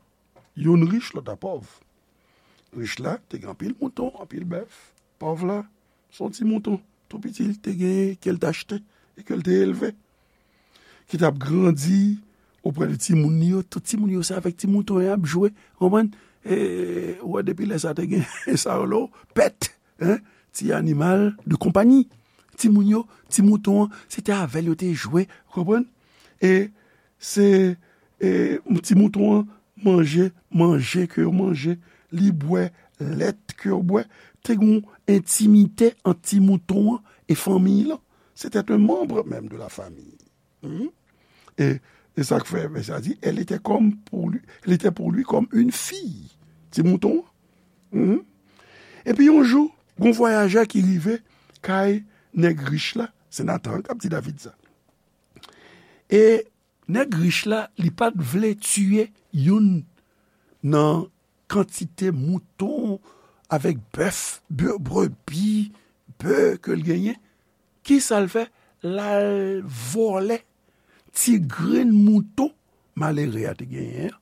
youn rich, lòt la pòv. Rich la te gen anpil mouton, anpil bèf. Pòv la, se yon ti mouton tou piti li te genyen ke l t achte e ke l te elve, ki t ap grandi oprè de timoun li yo. Tout timoun yo se avèk ti mouton yo y ap jwe, konprann? e, ou wè, depi lè sa te gen sa yo lo, pèt, hein, ti animal de konpanyi. Timoun yo, ti mouton an, se te avè l yo te jwe, ou konprann? E se, e, ti mouton an manje manje ke yo manje, li bwè lèt ke yo bwè. Te gen yon entimite ant ti mouton an e fanmiy lan. C'était un membre même de la famille. Mhm. E, e sa k fè, vèsè a di, elle était comme pour lui, elle était pour lui comme une fille. Ti mouton an. Mhm. Epi yon jou, gon vwayajè ki rive kay nèg rich la, se Natan k ap di David sa. E nèg rich la, li pa t vle tiye youn nan kantite mouton avèk bèf, bè-, brebi, bè ke l genyen. Kisa l fè? L al vòlè ti grenn mouton malere a te genyen an,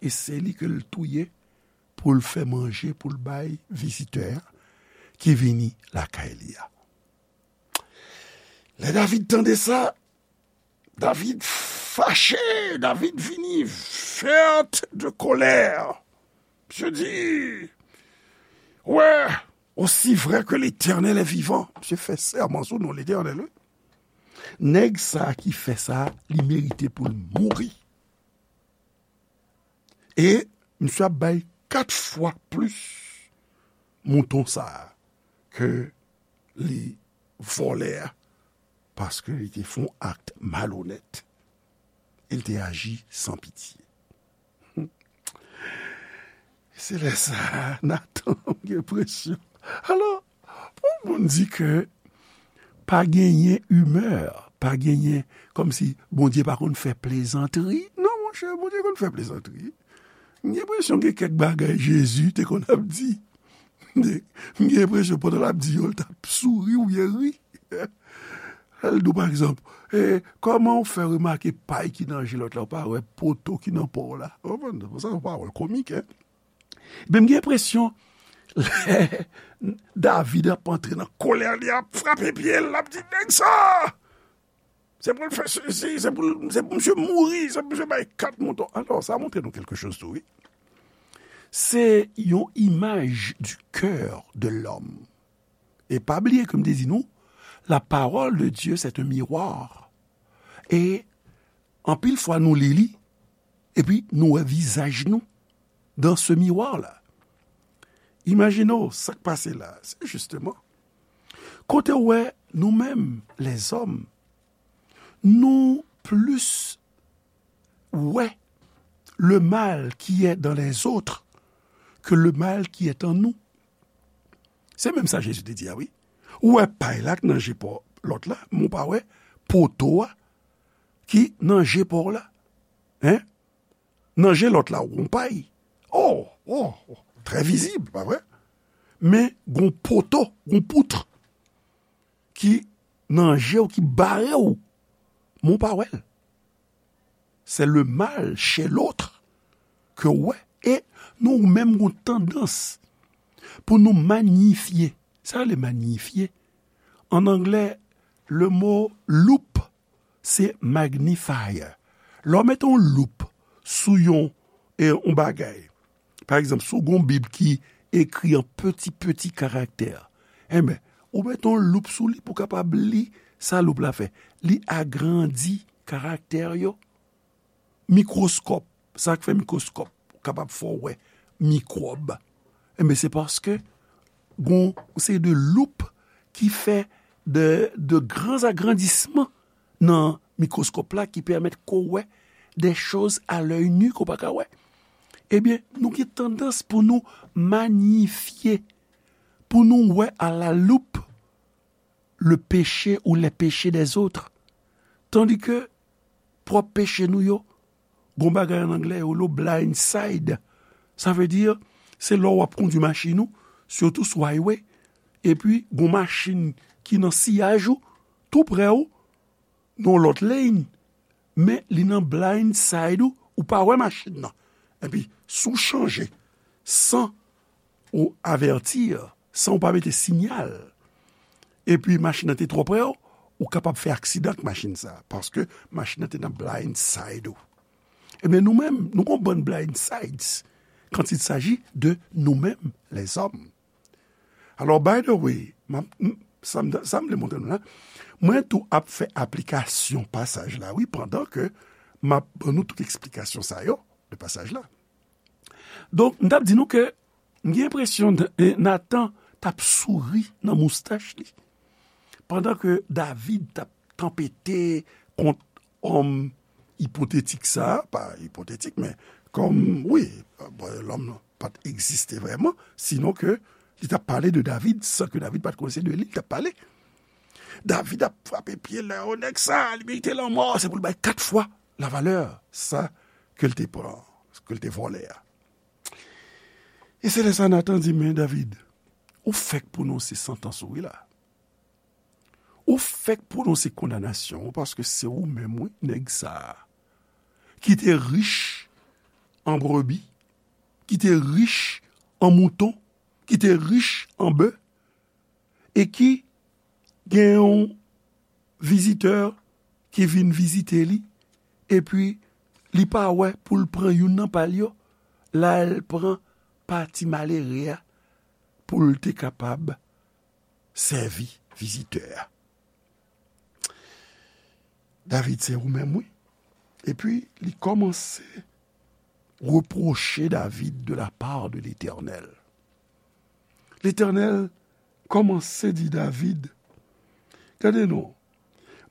e se li ke l touye pou l fè manje, pou l bay vizitè a ki vini lakay li a. Lè David tande sa, David fache, David vini vèt de kòlè. Misye di, wè, aussi vrai que l'Éternel est vivant. Misye fè sèman sou non Letènèl, wi. Nèg sa ki fè sa, li merite pou l mouri. E misye ap bay kat fwa plis mouton sa a ke li vòlè a, paske li te fè yon akt malonèt. E li te aji san pitye. Se lè sa a, Natan gen presyon. Alò, pou moun di ke pa genyen imè, pa genyen, kòmsi Bondye pa konn fè plezantri. Non, monchè, Bondye konn fè plezantri. M gen enpresyon gen kèk bagay Jezi te konn ap di. M gen enpresyon pandan l ap di yo, l t ap souri oubyen ri. Lè l di w, pa egzanp, e, kòman w fè remake pay ki nan je lòt la, w pa wè poto ki nan pa w la? Ou konprann? Sa se yon pawòl komik, en. Men m gen enpresyon, lè David ap antre nan kòlè, li ap frape pye l, l ap di, nèg sa! Se pou l fè sesi, se pou l, se pou misye mouri, se pou misye bay kat mouton. Alò, sa montre nou kèlke choz tou, wi. Se yon imaj du cœur de l'homme. E pa bliye ke m te di nou, la parole de Dieu, c'est un miroir. E anpil fwa, nou li li, epi nou wè vizaj nou dans ce miroir-là. Imajine w sa k pase la. Se jisteman kote w wè nou menm, lèzòm, nou plis wè le mal qui est dans les autres que le mal qui est en nous. Se menm sa Jezi te di a, wi. Ou wè pay la k nan je pa w, lòt la, men w pa wè poto a ki nan je pa w la. Hein? Nan je lòt la, w gon pay. Oh, oh, oh, trè vizib, pa vre? Men gon poto, gon pout ki nan je w, ki bare w, men w pa wè l. C'est le mal chez l'autre ke w wè. E nou menm gon tandans pou nou manyifye. Sa rele manyifye. An anglè, le mo loupe, se magnifier. Lè w mete yon loup sou yon, e, yon bagay, pa egzanp, si w gon Bib ki ekri an peti, peti karaktè, enben, ou mete yon loup sou li pou w kapab li sa loup la fè. Li agrandi karaktè yo. Mikwoskòp, sa k fè mikwoskòp kapab fè w wè mikwòb. Enben, se paske gon seri de loup ki fè de, de gran agrandisman nan mikwoskòp la ki pèmèt ke w wè de choz a lèy ni ke w pa ka wè. Ebyen, nou gen tandans pou nou manyifye, pou nou wè à la loupe le péché ou les péchés des autres. Tandis que pwòp peche nou yo, gon bagay an anglè yo lo blind side. Sa vle di, se lè w ap kondwi machin ou, sitou sou highway, epi gon machin ki nan siyaj ou, tou prè ou, nan yon lòt lane, men li nan blind side ou, ou pa wè machin nan. Epi, si w chanje san ou avèti, san ou pa mete siyal, epi machin nan te twò prè w, ou kapab fè aksidan ak machin sa a, paske machin nan te nan blind side ou. Ebyen, nou menm, nou gon bann blind sides. quand il s'agit de nous-mêmes, les hommes. Alors, by the way, m ap, m, sa m, sa m vle montre nou la, mwen tou ap fè aplikasyon pasaj la, wi, pandan ke m ap ban nou tout eksplikasyon sa yo de pasaj la. Donk, m t ap di nou ke m gen enpresyon N-, eh, Natan t ap souri nan moustach li, pandan ke David t ap tanpete kont òm ipotetik sa a, pa ipotetik, men kòm, wi, bon, lòm nan pa t egziste vrèman, sinon ke li t ap pale de David, san ke David pa t konnen se de li li t ap pale. David ap frape pye l, o nèg sa, li merite lanmò, se pou l bay kat fwa lavalè sa ke l te pran, ke l te vòlè a. E se lè sa Natan di, men David, ou fèk pwononse santans ou wi la. Ou fèk pwononse kondanasyon ou, paske se ou menm, wi, nèg sa a, ki te rich an brebi, ki te rich an mouton, ki te rich an bè, e ki gen yon vizitè ki vin vizite li, epi li pa wè pou l pran youn nan pa l yo, l al pran pa ti malere a pou l te kapab sèvi vizitè a. David, se ou menm, wi. Epi, li kòmanse repwoche David de la part de Letènèl. Letènèl kòmanse di David, gade non,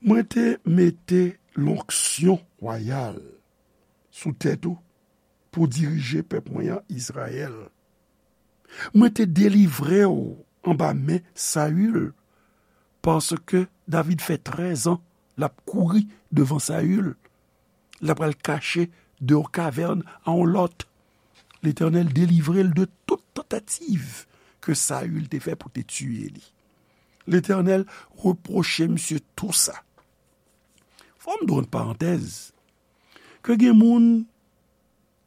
mwen te mete lonksyon wayal sou tèt ou pou dirije pèp mwen an, Izrayèl. Mwen te delivre w anba men Sayil, paske David fè trèz an l ap kouri devan Sayil. L ap al kache de yon kavèn a yon lòt. Letènèl delivre l de tout tantativ ke Sayil te fè pou te tiye li. Letènèl repwoche misye tou sa. Fò m dwe yon parantèz, ke gen moun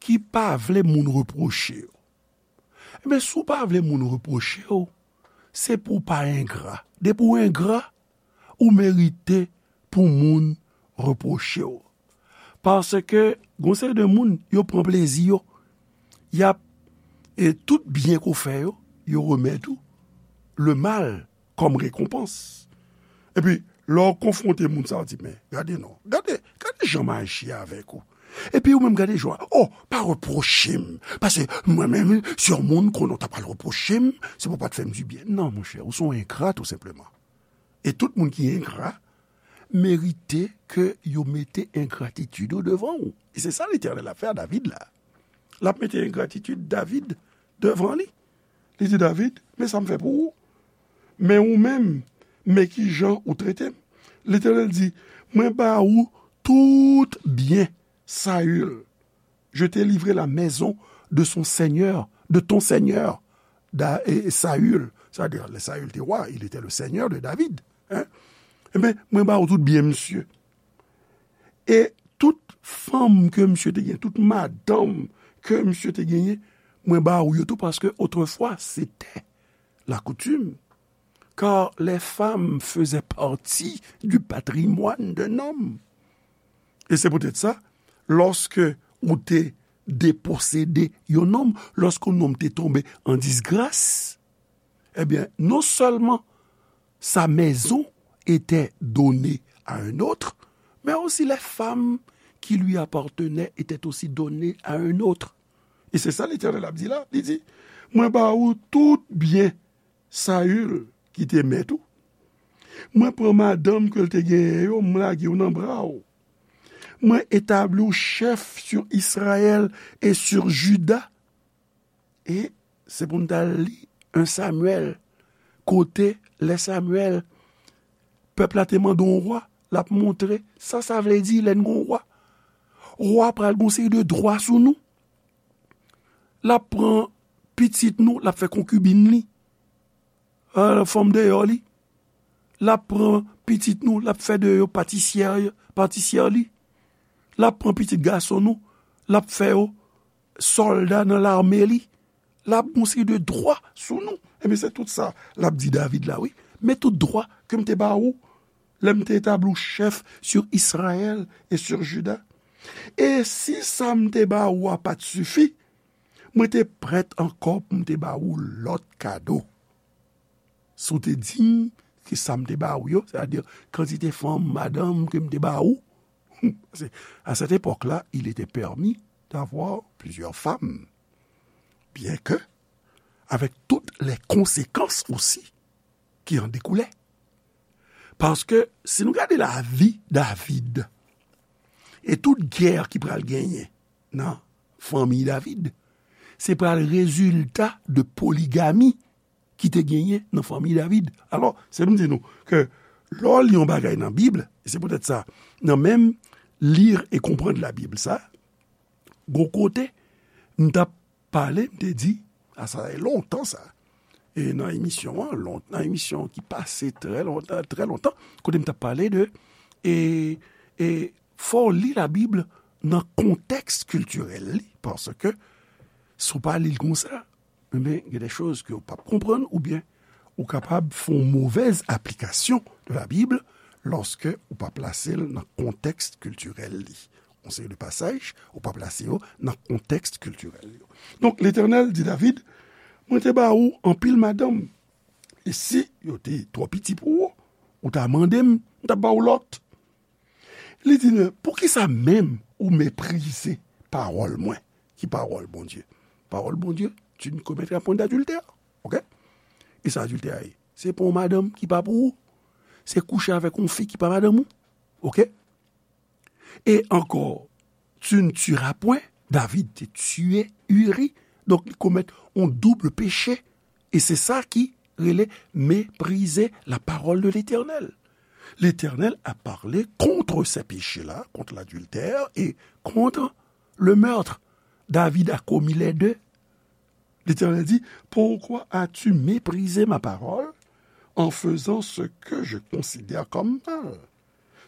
ki pa vle moun repwoche yo. Ebyen, si w pa vle moun repwoche w, se pou w pa engra. Depi w engra, ou merite pou moun repwoche w. Paske, gon seri de moun, yo pran plezi yo. Y ap, e tout byen ke w fè yo, yo remèt ou le mal kòm rekonpans. Epi, lè w konfwonte moun sa, w di, men, gade non, gade, gade jan m aji avèk ou. Epi ou menm gade jan, oh, pa repwoche m. Paske mwen menm, si yon moun konnen w ta pral repwoche m, se pou w pa t fè m dibyen. Non, monchè, ou se yon engra, tou senpleman. E tout moun ki engra, merite ke yo mete engratitid yo devan ou. E se sa Letènèl ap fè a David la. L ap mete engratitid David devan li. Li di, David, men sa m fè pou ou. Men ou menm, men ki jan ou trete m. Letènèl di, mwen ba ou tout byen Sayil. Je t'ai livré la maison de son seigneur, de ton seigneur, Da-, e, Sayil. Sa vle di, lè Sayil te wa, il était le seigneur de David. Hein? Ebyen, mwen ba ou tout byen misye. E tout fanm ke misye te genyen, tout madanm ke misye te genyen, mwen ba ou yo tou, paske otrefwa, c'était la coutume, car les femmes faisaient partie du patrimoine d'un homme. E se poutèt sa, lòske ou te deposede yon nonm, lòske yon nonm te tonbe an disgras, ebyen, non sèlman sa mèzon etè done a yon òt, men osi lè fanm ki li apatnè etè osi done a yon òt. E se sa Letènèl ap di la, li di, mwen ba ou tout byen Sayil ki te mèt ou. Mwen pran madanm ke l te genyen yo, m lage yo nan bra w. Mwen etabli w chèf sur Israël et sur Juda. E se pou n t al li en Samyèl, kote lè Samyèl, pèp la te mande yon wa, l ap montre sa sa vle di lè n gon wa. Wa pral gon seri de dwa sou nou. L ap pran pitit nou, l ap fè konkibin li, euh, fanm deyò li. L ap pran pitit nou, l ap fè de yo patisyè, patisyè li. L ap pran pitit gason nou, l ap fè yo sòlda nan lame li. L ap gon seri de dwa sou nou. Ebyen, se tout sa l ap di David la, wi. Men tout dwa ke m te ba ou, lè m te etabli w chèf sur Israël et sur Juda. E si sa m te ba ou a pa t sifi, Mwen te prèt ankò pou m te ba ou lòt kado. Si w te di m ki sa m te ba ou yo, sètadi kantite fanm, madanm ke m te ba ou, à cette époque-là, il était permis d'avoir plusieurs femmes, bien que avec toutes les conséquences aussi qui en découlaient. Paske si nou gade lavi David e tout gè ki pral genyen nan fanmi David, se pral rezilta de poligami ki te genyen nan fanmi David. Alò, se pou m di nou ke lè w li yon bagay nan Bib, e se poutèt sa, nan menm Lire et Comprendre la Bible sa, gon kote, m t ap pale, m te di, a sa fè lontan sa, e nan emisyon an, lon, nan emisyon ki pase trè lontan, trè lontan, kote m t ap pale de, e, e fò w li Labib nan kontèks kiltirèl li, paske si w pa li l konsa, enben, gen de choz ke w p ap konprann, oubyen ou kapab fè yon movèz aplikasyon de Labib lòske ou pa plase l nan kontèks kiltirèl li. Yon seri de pasaj, ou pa plase yo nan kontèks kiltirèl yo. Donk, Letènèl di David, mwen te ba ou anpil madanm, e si yo te twò piti pou ou, ou ta mande m, m t ap ba ou lòt. Li di, poukisa menm ou meprize pawòl mwen, ki pawòl Bondye? Pawòl Bondye, tu ne commettras point d'adultère. Ok? E sa adiltè a ye? Se pran yon madanm ki pa pou ou. Se kouche avèk yon fi ki pa madanm ou. Ok? E ankò, tu ne tueras point. David te tiye Uri. Donk, li komèt yon doub peche. E se sa ki rele mépriser la parole de l'Éternel. L'Éternel a parlé contre ces péchés-là, contre l'adultère et contre le meurtre. David a commis les deux. L'Éternel dit, pourquoi as-tu méprisé ma parole en faisant ce que je considère comme mal?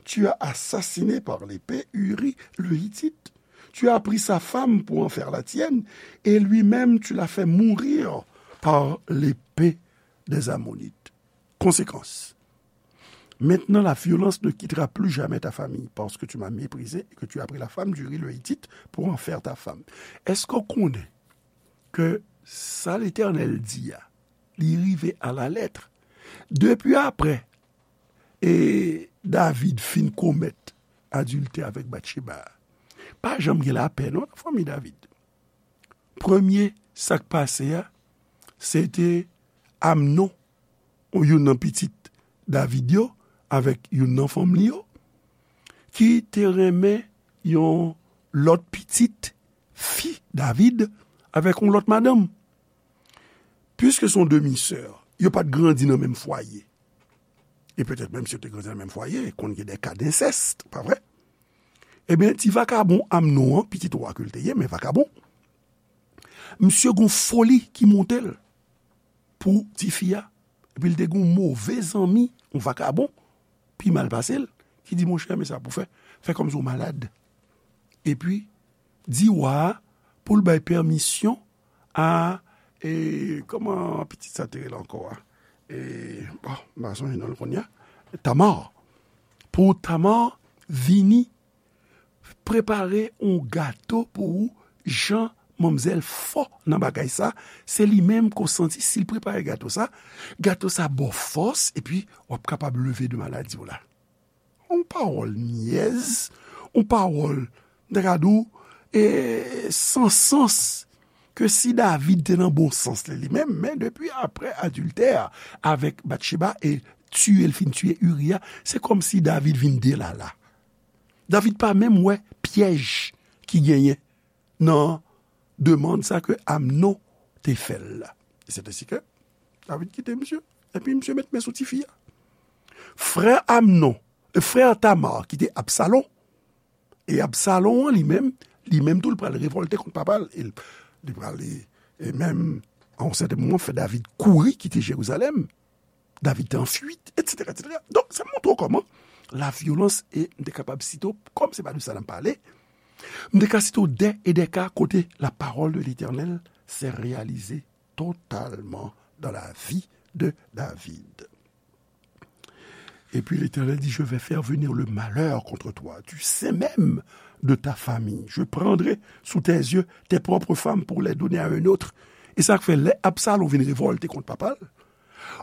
Tu as assassiné par l'épée Uri le Hittite. Tu as pris sa femme pour en faire la tienne, et lui-même tu l'as fait mourir par l'épée des Ammonites. Conséquence. Maintenant, la violence ne quittera plus jamais ta famille, parce que tu m'as méprisé et que tu as pris la femme d'Uri le Hittite pour en faire ta femme. Èske w konnen ke sa Letènèl di a, li rive à la lettre? Depi apre, e David fin komèt adiltè avèk Batcheba, pa janm gen lapè non nan fanmi David. Premye sa k pase a, se te Amnon, youn nan pitit David yo, avèk youn nan fanm li yo, ki te renmen yon lòt pitit fi David avèk yon lòt madanm. Piske se yon demi-sè, yo pa t grandi nan menm fwaye. E petèt menm si yo te grandi nan menm fwaye, konn gen de ka densès, pa vre? Ebyen, ti vakabon Amnon an, pitit wa ke l te ye, men vakabon, misye gon foli ki monte l pou tifi a. Epi l te gon move zanmi, yon vakabon, pi mal pase l, ki di, monchè, men sa pou fè, fè kòmsi w malad. Epi, di wa a pou l bay pèmisyon a, e, kòman pitit sa te rele ankò a? E, bon, m pa sonje non l kounye a. Tamar. Pou Tamar vini prepare yon gato pou ou, jan manmzèl fò nan bagay sa, se li menm ke w santi si l prepare gato sa, gato sa ba w fòs, epi w ap kapab leve de maladi w la. Yon pawòl nyèz, yon pawòl, m ta ka di w, e, san sans, ke si David te nan bon sans li, li menm, men depi apre adiltè avèk Batcheba e tiye l fin tiye Uri a, se kòmsi David vin delala. David pa menm wè pyèj ki genyen nan demann sa ke Amnon te fè l la. E se te si ke David kite misye, epi misye met men sou tifi a. Frè Amnon, e frè Tamar ki te Absalon, e Absalon an li menm, li menm tou l pral revòlte kont papa l, e l, li pral, e, e menm, a yon sèten moman, fè David kouri kite Jerizalèm. David te an fuit, etsetera, etsetera. Donk, sa montre w kòman la vyolans, e m te kapab site w, kòm se pa de sa n ap pale, m te ka site w dè e dè ka kote la parole de l'Éternel s'est réalisée totalement dans la vie de David. Et puis l'Éternel dit, je vais faire venir le malheur contre toi, du sein même de ta famille. Je prendrai sous tes yeux tes propres femmes pour les donner à un autre. E sa k fè lè Absalon vin revòlte kont papa l,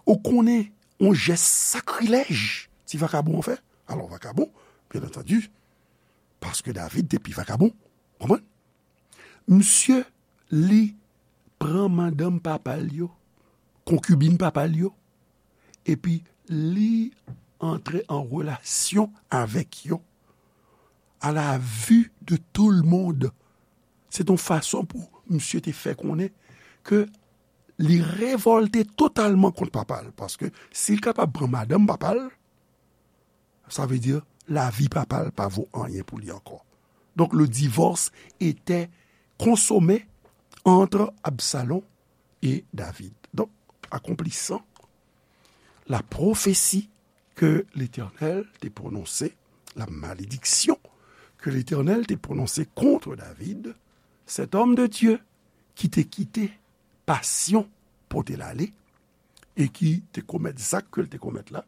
ou konnen yon jès sakrilèj ti vakabon an fè. Alò vakabon, byen antandi, paske David te pi vakabon. Konprann? Misye, li pran madanm papa l yo, konkibin papa l yo, epi li antre an relasyon avèk yo à la vue de tout le monde. Se t yon fason pou misye te fè konnen ke li revòlte totalman kont papa l, paske si l kapab pran madanm papa l, sa vle di lavi papa l pa vo anyen pou li ankò. Donc le divorce était consommé entre Absalom et David. Donc, accomplissant la prophétie que l'Éternel te prononse, la malédiction que l'Éternel te prononse contre David, cet homme de Dieu ki te kite pasyon pote l ale, e ki te komèt zak ke l te komèt la,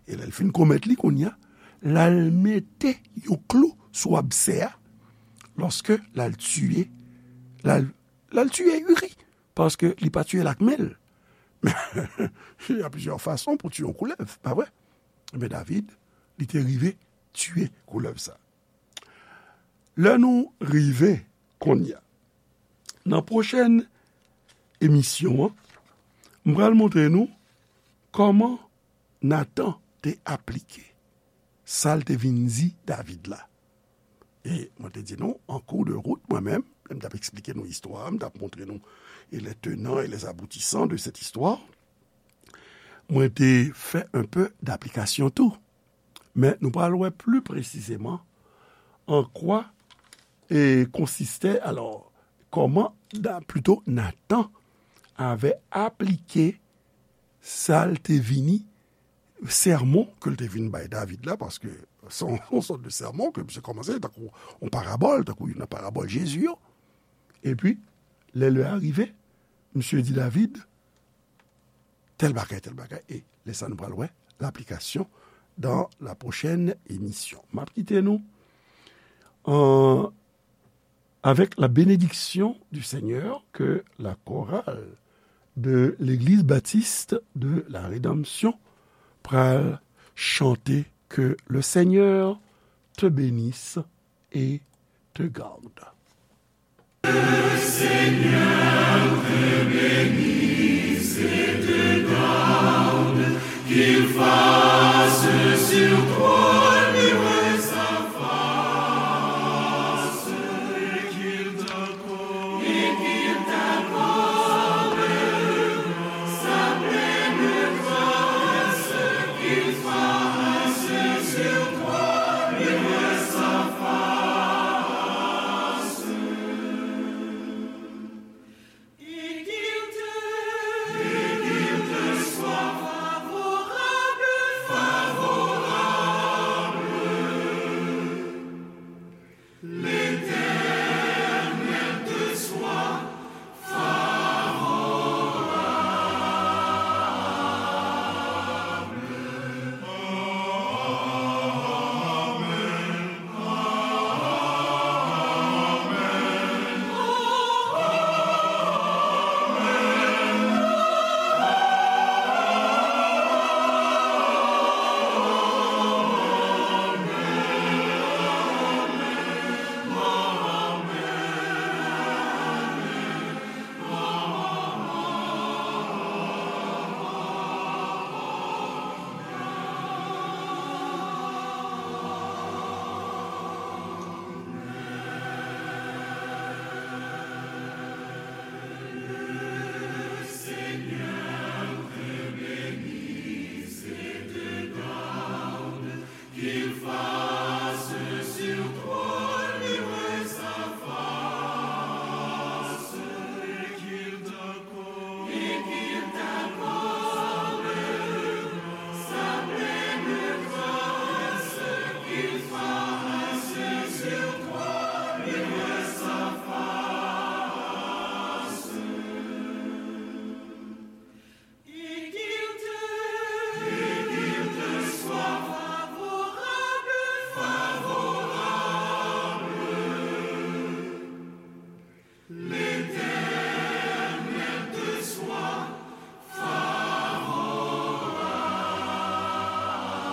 e lè l fin komèt li kounye a, l al mete yon klou sou absè a, lòske l al tiye, l al, l al tiye Uri, paske li pa tiye l ak men l. Il y a plusieurs façons pour tuer yon koulèv, pa vre? Men David, li te rive tiye koulèv sa. Lè nou rive kounye a, nan pwochèn emisyon an, m pral montre nou kòman Natan te aplike sa l te vin di David la. E mwen te di nou, an kou de wout, mwen menm, lè m t ap eksplike nou istwa a, m t ap montre nou e les tenants et les aboutissants de cette histoire, mwen te fè un peu d'application tou. Men nou pral wè pli presizeman an kwa e konsiste, alò, kòman, plito Natan avè aplike sa l te vini, sèmon ke l te vin bay David la, paske se yon sòt de sèmon ke misye kòmanse tankou yon parabòl, tankou youn nan parabòl Jezi yo. Epi, lè lè a rive, misye di David, tèl bagay, tèl bagay. E lè sa nou pral wè laplikasyon dans la prochaine émission. M ap kite nou an, avec la bénédiction du Seigneur que la chorale de l'Église Baptiste de la Rédemption pral chante. Que le Seigneur te bénisse et te garde.